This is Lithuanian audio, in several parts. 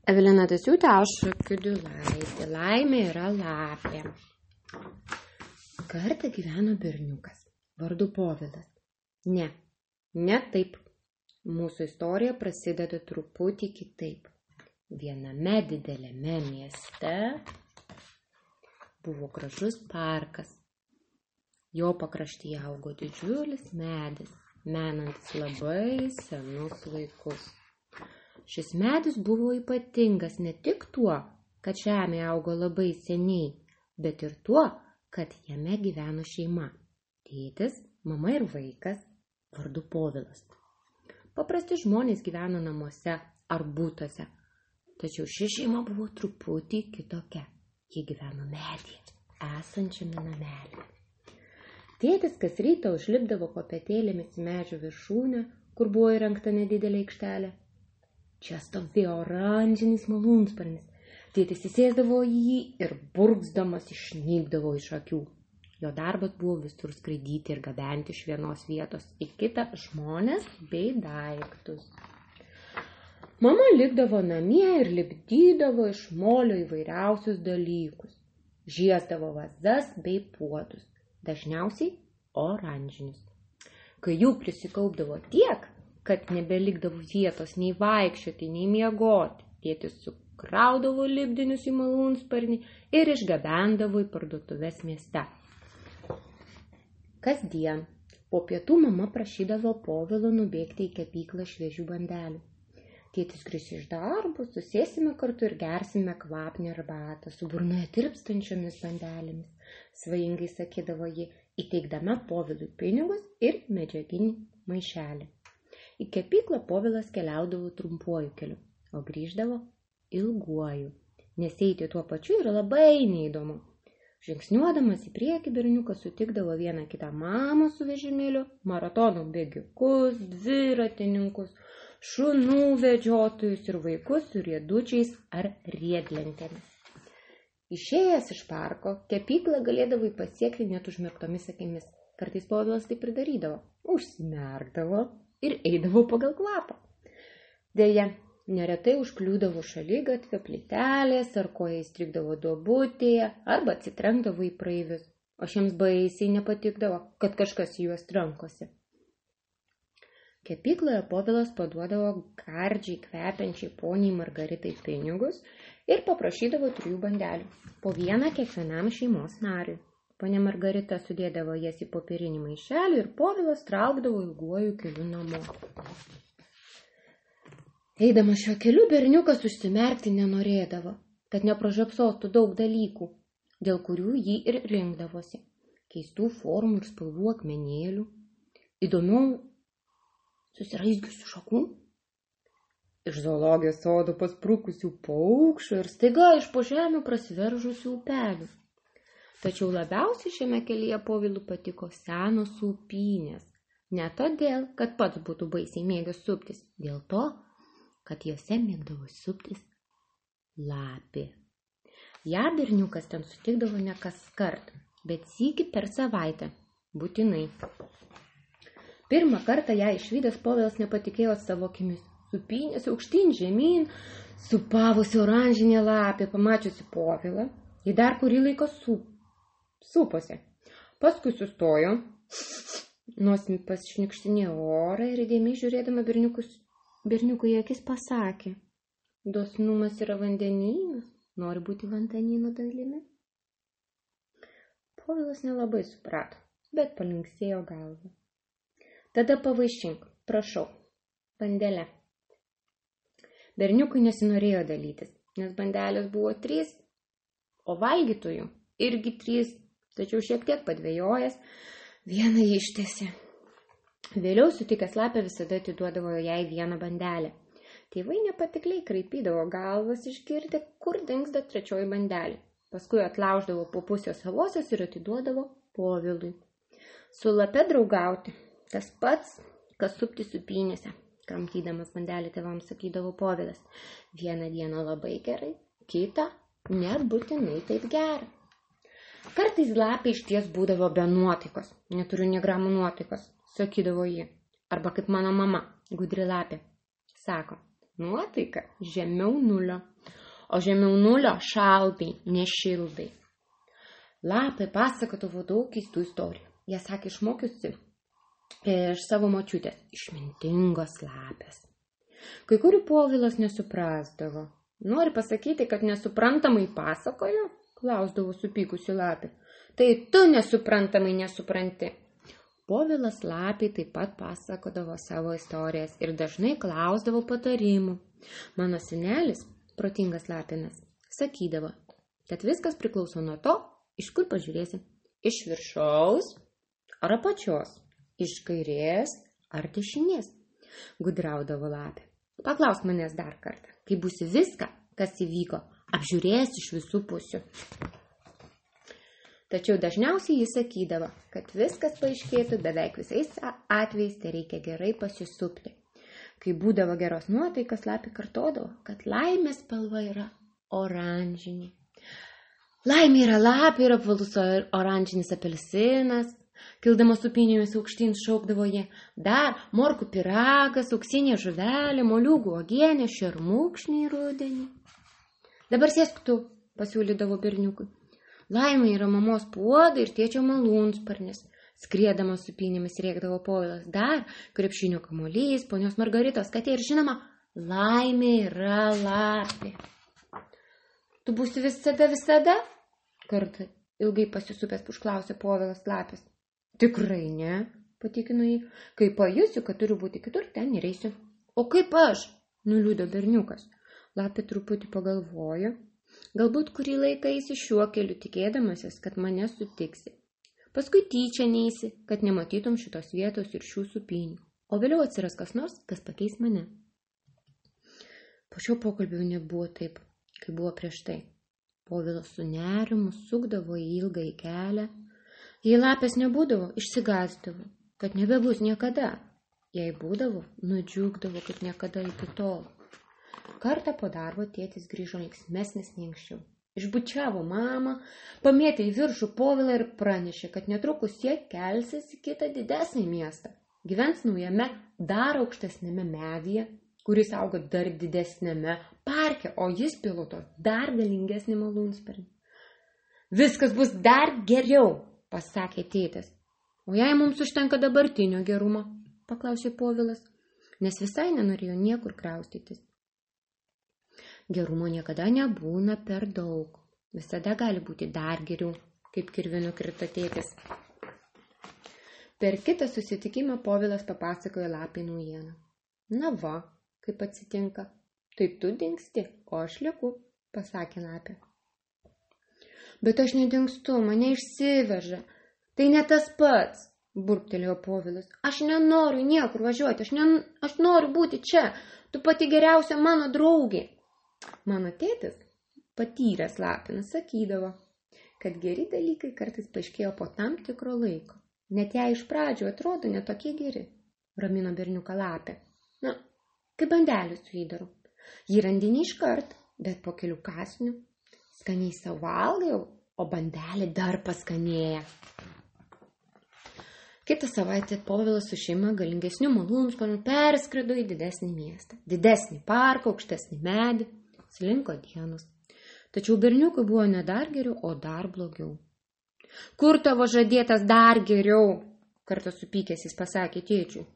Evelina Dasiūtė, aš Kiudulaitė. Laimė yra lapė. Kartą gyveno berniukas, vardu Povilas. Ne taip. Mūsų istorija prasideda truputį kitaip. Viename dideliame mieste buvo gražus parkas. Jo pakraštyje augo didžiulis medis, menantis labai senus laikus. Šis medis buvo ypatingas ne tik tuo, kad žemė augo labai seniai, bet ir tuo, kad jame gyveno šeima. Tėtis, mama ir vaikas, vardu Povilas. Paprasti žmonės gyveno namuose ar būtuose, tačiau ši šeima buvo truputį kitokia. Jie gyveno medyje, esančiame namelyje. Tėtis kas rytą užlipdavo kopėtėlėmis į medžio viršūnę, kur buvo įrengta nedidelė aikštelė. Čia stovėjo oranžinis malūnsparnis. Tėtis įsėsdavo į jį ir burgzdamas išnykdavo iš akių. Jo darbas buvo visur skraidyti ir gabenti iš vienos vietos į kitą žmones bei daiktus. Mama likdavo namie ir lipdydavo iš molio įvairiausius dalykus. Žiesdavo vazas bei puodus, dažniausiai oranžinius. Kai jų prisikaupdavo tiek, kad nebelikdavo vietos nei vaikščioti, nei miegoti, tėtis sukraudavo lipdinius į malūnsparnį ir išgabendavo į parduotuves mieste. Kasdien po pietų mama prašydavo Povilo nubėgti į kepyklą šviežių bandelių. Tėtis grįš iš darbo, susėsime kartu ir gersime kvapnią arbatą su burnoje tirpstančiomis bandelėmis, svajingai sakydavo ji, įteikdama Povilui pinigus ir medžiaginį maišelį. Į kepyklą Povilas keliaudavo trumpuoju keliu, o grįždavo ilguoju, nes eiti tuo pačiu yra labai neįdomu. Žingsniuodamas į priekį berniukas sutikdavo vieną kitą mamą su vežimėliu, maratono bėgikus, dviratininkus, šunų vedžiotojus ir vaikus su riedučiais ar riedlentėmis. Išėjęs iš parko, kepyklą galėdavai pasiekti net užmerktomis akimis. Kartais Povilas taip ir darydavo, užsimerkdavo ir eidavo pagal kvapą. Deja, neretai užkliūdavo šaligatvio plytelės, ar koja įstrigdavo duobutėje, arba atsitrenkdavo į praeivius, o šiems baisiai nepatikdavo, kad kažkas į juos trankosi. Kepykloje Povilas paduodavo gardžiai kvepiančiai poniai Margaritai pinigus ir paprašydavo 3 bandelių, po vieną kiekvienam šeimos nariui. Ponia Margarita sudėdavo jas į popierinį maišelį ir Povilas traukdavo ilguoju keliu namo. Eidamas šiuo keliu berniukas užsimerkti nenorėdavo, kad nepražiopsotų daug dalykų, dėl kurių jį ir rinkdavosi. Keistų formų ir spalvų akmenėlių, įdomių susiraizgiusių šakų, iš zoologijos sodo pasprukusių paukščių ir staiga iš po žemių prasiveržusių upelių. Tačiau labiausiai šiame kelyje Povilui patiko senos upynės. Ne todėl, kad pats būtų baisiai mėgęs suptis, dėl to, kad jose mėgdavo suptis lapė. Ja berniukas ten sutikdavo ne kaskart, bet sykį per savaitę, būtinai. Pirmą kartą ją išvydęs Povilas nepatikėjo savo akimis. Supynėsi aukštyn žemyn, supavusi oranžinė lapė, pamačiusi Povilą, ji dar kurį laiką suposi. Paskui sustojo, nosimi pasišnikštinėjo orą ir įdėmiai žiūrėdama berniukui į akis pasakė: dosnumas yra vandenynas, nori būti vandenyno dalimi. Povilas nelabai suprato, bet palinksėjo galvą. Tada pavaišink, prašau, bandelę. Berniukui nesinorėjo dalytis, nes bandelės buvo 3, o valgytojų irgi 3, tačiau šiek tiek padvejojęs, vieną ištęsė. Vėliau sutikęs lapę visada atiduodavo jai vieną bandelę. Tėvai nepatikliai kraipydavo galvas išgirdę, kur dingsta 3 bandelė. Paskui atlauždavo po pusės savosios ir atiduodavo Povilui. Su lape draugauti, tas pats, kas supti supynėse, kramtydamas bandelį tėvams sakydavo Povilas. Vieną dieną labai gerai, kitą nebūtinai taip gerai. Kartais lapė išties būdavo be nuotaikos, neturiu nė gramų nuotaikos, sakydavo ji. Arba kaip mano mama, gudri lapė, sako, Nuotaika žemiau nulio, o žemiau nulio šaltai, nešiltai. Lapė pasakodavo daug keistų istorijų. Jie sakė išmokiusi iš savo močiutės, išmintingos lapės. Kai kurių Povilas nesuprasdavo. Nori pasakyti, kad nesuprantamai pasakojo? Klausdavo supykusi lapė. Tai tu nesuprantamai nesupranti. Povilas lapiai taip pat pasakodavo savo istorijas ir dažnai klausdavo patarimų. Mano senelis, protingas lapinas, sakydavo, kad viskas priklauso nuo to, iš kur pažiūrėsi. Iš viršaus ar apačios, iš kairės ar dešinės. Gudraudavo lapė. Paklausk manęs dar kartą, kai būsi viską, kas įvyko, apžiūrės iš visų pusių. Tačiau dažniausiai jis sakydavo, kad viskas paaiškėtų beveik visais atvejais, tai reikia gerai pasisupti. Kai būdavo geros nuotaikas, lapė kartodavo, kad laimės spalva yra oranžinė. Laimė yra lapė ir apvalus oranžinis apelsinas. Kildamas upinėmis aukštyn šaukdavo jie, dar morkų piragas, auksinė žuvelė, moliūgų uogienė, šermukšniai rudenį. Dabar sėsk tu, pasiūlydavo berniukui. Laimė yra mamos puodai ir tėčio malūnsparnis. Skriedamas upinėmis rėkdavo Povilas, dar krepšinio kamuolys, ponios Margaritos katė ir žinoma, laimė yra lapė. Tu būsi visada? Kartą ilgai pasisupęs užklausė Povilas lapės. Tikrai ne, patikino jį. Kai pajusiu, kad turiu būti kitur, ten ir eisiu. O kaip aš? Nuliūdo berniukas. Lapė truputį pagalvojo. Galbūt kurį laiką eisi šiuo keliu, tikėdamasis, kad mane sutiksi. Paskui tyčia neisi, kad nematytum šitos vietos ir šių supinių. O vėliau atsiras kas nors, kas pakeis mane. Po šio pokalbio nebuvo taip, kaip buvo prieš tai. Povilas su nerimu sukdavo į ilgą kelią. Jei lapės nebūdavo, išsigąsdavo, kad nebebus niekada. Jei būdavo, nudžiugdavo, kad niekada iki tol. Kartą po darbo tėtis grįžo linksmesnis nei anksčiau. Išbučiavo mamą, pamėtė į viršų Povilą ir pranešė, kad netrukus jie kelsis į kitą didesnį miestą. Gyvens naujame, dar aukštesnėme medyje, kuris auga dar didesnėme parke, o jis piloto dar galingesnį malūnsparnį. Viskas bus dar geriau, pasakė tėtis. O jei mums užtenka dabartinio gerumo, paklausė Povilas, nes visai nenorėjo niekur kraustytis. Gerumo niekada nebūna per daug. Visada gali būti dar geriau, kaip kirvinu krito tėtis. Per kitą susitikimą Povilas papasakojo lapei naujieną. Na va, kaip atsitinka. Tai tu dingsti, o aš lieku, pasakė lapė. Bet aš nedingstu, mane išsiveža. Tai ne tas pats, burbtelėjo Povilas. Aš nenoriu niekur važiuoti, aš noriu būti čia. Tu pati geriausia mano draugė. Mano tėtis, patyręs lapinas, sakydavo, kad geri dalykai kartais paaiškėjo po tam tikro laiko. Net jei iš pradžių atrodo netokie geri, ramino berniuką lapė. Na, kaip bandelį su įdaru. Jį randini iškart, bet po kelių kąsnių skaniai savo valgai, o bandelė dar paskanėja. Kitą savaitę Povilas su šeima galingesnių malūnsparnių perskrido į didesnį miestą. Didesnį parką, aukštesnį medį, slinko dienos. Tačiau berniukui buvo ne dar geriau, o dar blogiau. Kur tavo žadėtas dar geriau? Kartą supykęs jis pasakė tėčiui.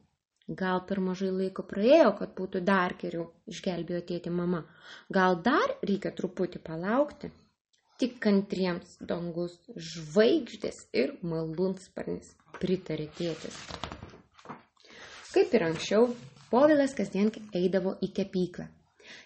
Gal per mažai laiko praėjo, kad būtų dar geriau, išgelbėjo tėtį mama. Gal dar reikia truputį palaukti? Tik kantriems dangus, žvaigždės ir malūnsparnis, pritarė tėtis. Kaip ir anksčiau, Povilas kasdien eidavo į kepyklą.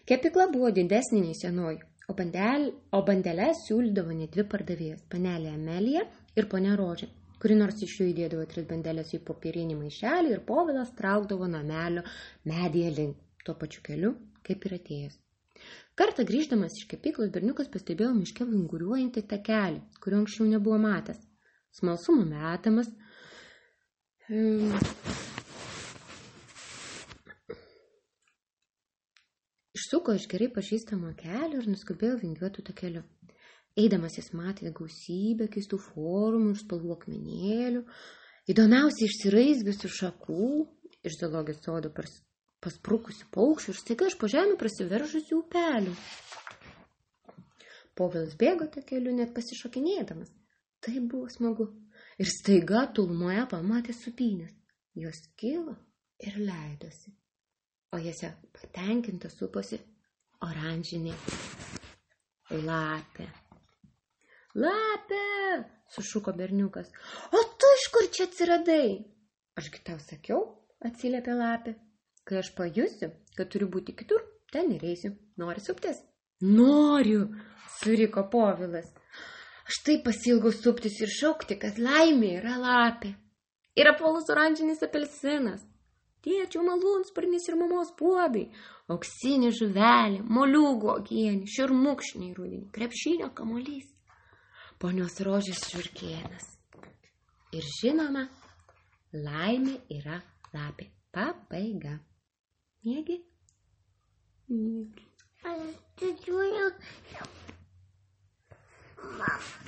Kepykla buvo didesnė nei senoji, o bandeles siūlydavo ne dvi pardavėjos, panelė Amelija ir ponia Rožė, kuri nors iš jų įdėdavo 3 bandelės į popierinį maišelį ir Povilas traukdavo namelio medyje link, tuo pačiu keliu, kaip ir atėjęs. Kartą grįždamas iš kepyklos berniukas pastebėjo miške vinguriuojantį takelį, kurio anksčiau nebuvo matęs. Smalsumo metamas, išsuko iš gerai pažįstamo kelio ir nuskubėjo vingiuotų takeliu. Eidamas jis matė gausybę keistų formų ir spalvų akmenėlių, įdomiausiai išsiraizgiusių šakų, iš zoologijos sodo pasprukusių paukščių ir staiga iš po žemių prasiveržusių upelių. Povilas bėgo tą keliu, net pasišokinėdamas. Tai buvo smagu. Ir staiga tolumoje pamatė sūpynės. Jos kilo ir leidosi. O jose patenkinta suposi oranžinė lapė. Lapė! Sušuko berniukas. O tu iš kur čia atsiradai? Ašgi tau sakiau, atsiliepė lapė. Kai aš pajusiu, kad turiu būti kitur, ten ir eisiu. Nori suptis? Noriu, suriko Povilas. Aš taip pasiilgau suptis ir šaukti, kad laimė yra lapė. Ir apvalus oranžinis apelsinas. Tėčio malūnsparnis ir mamos puodai. Auksinė žuvelė, moliūgų uogienė, šermukšniai rudenį, krepšinio kamuolys. Ponios rožės žiurkėnas. Ir žinoma, laimė yra lapė. Pabaiga. Miegi? Miegi. Aš didžiuoju. Mama.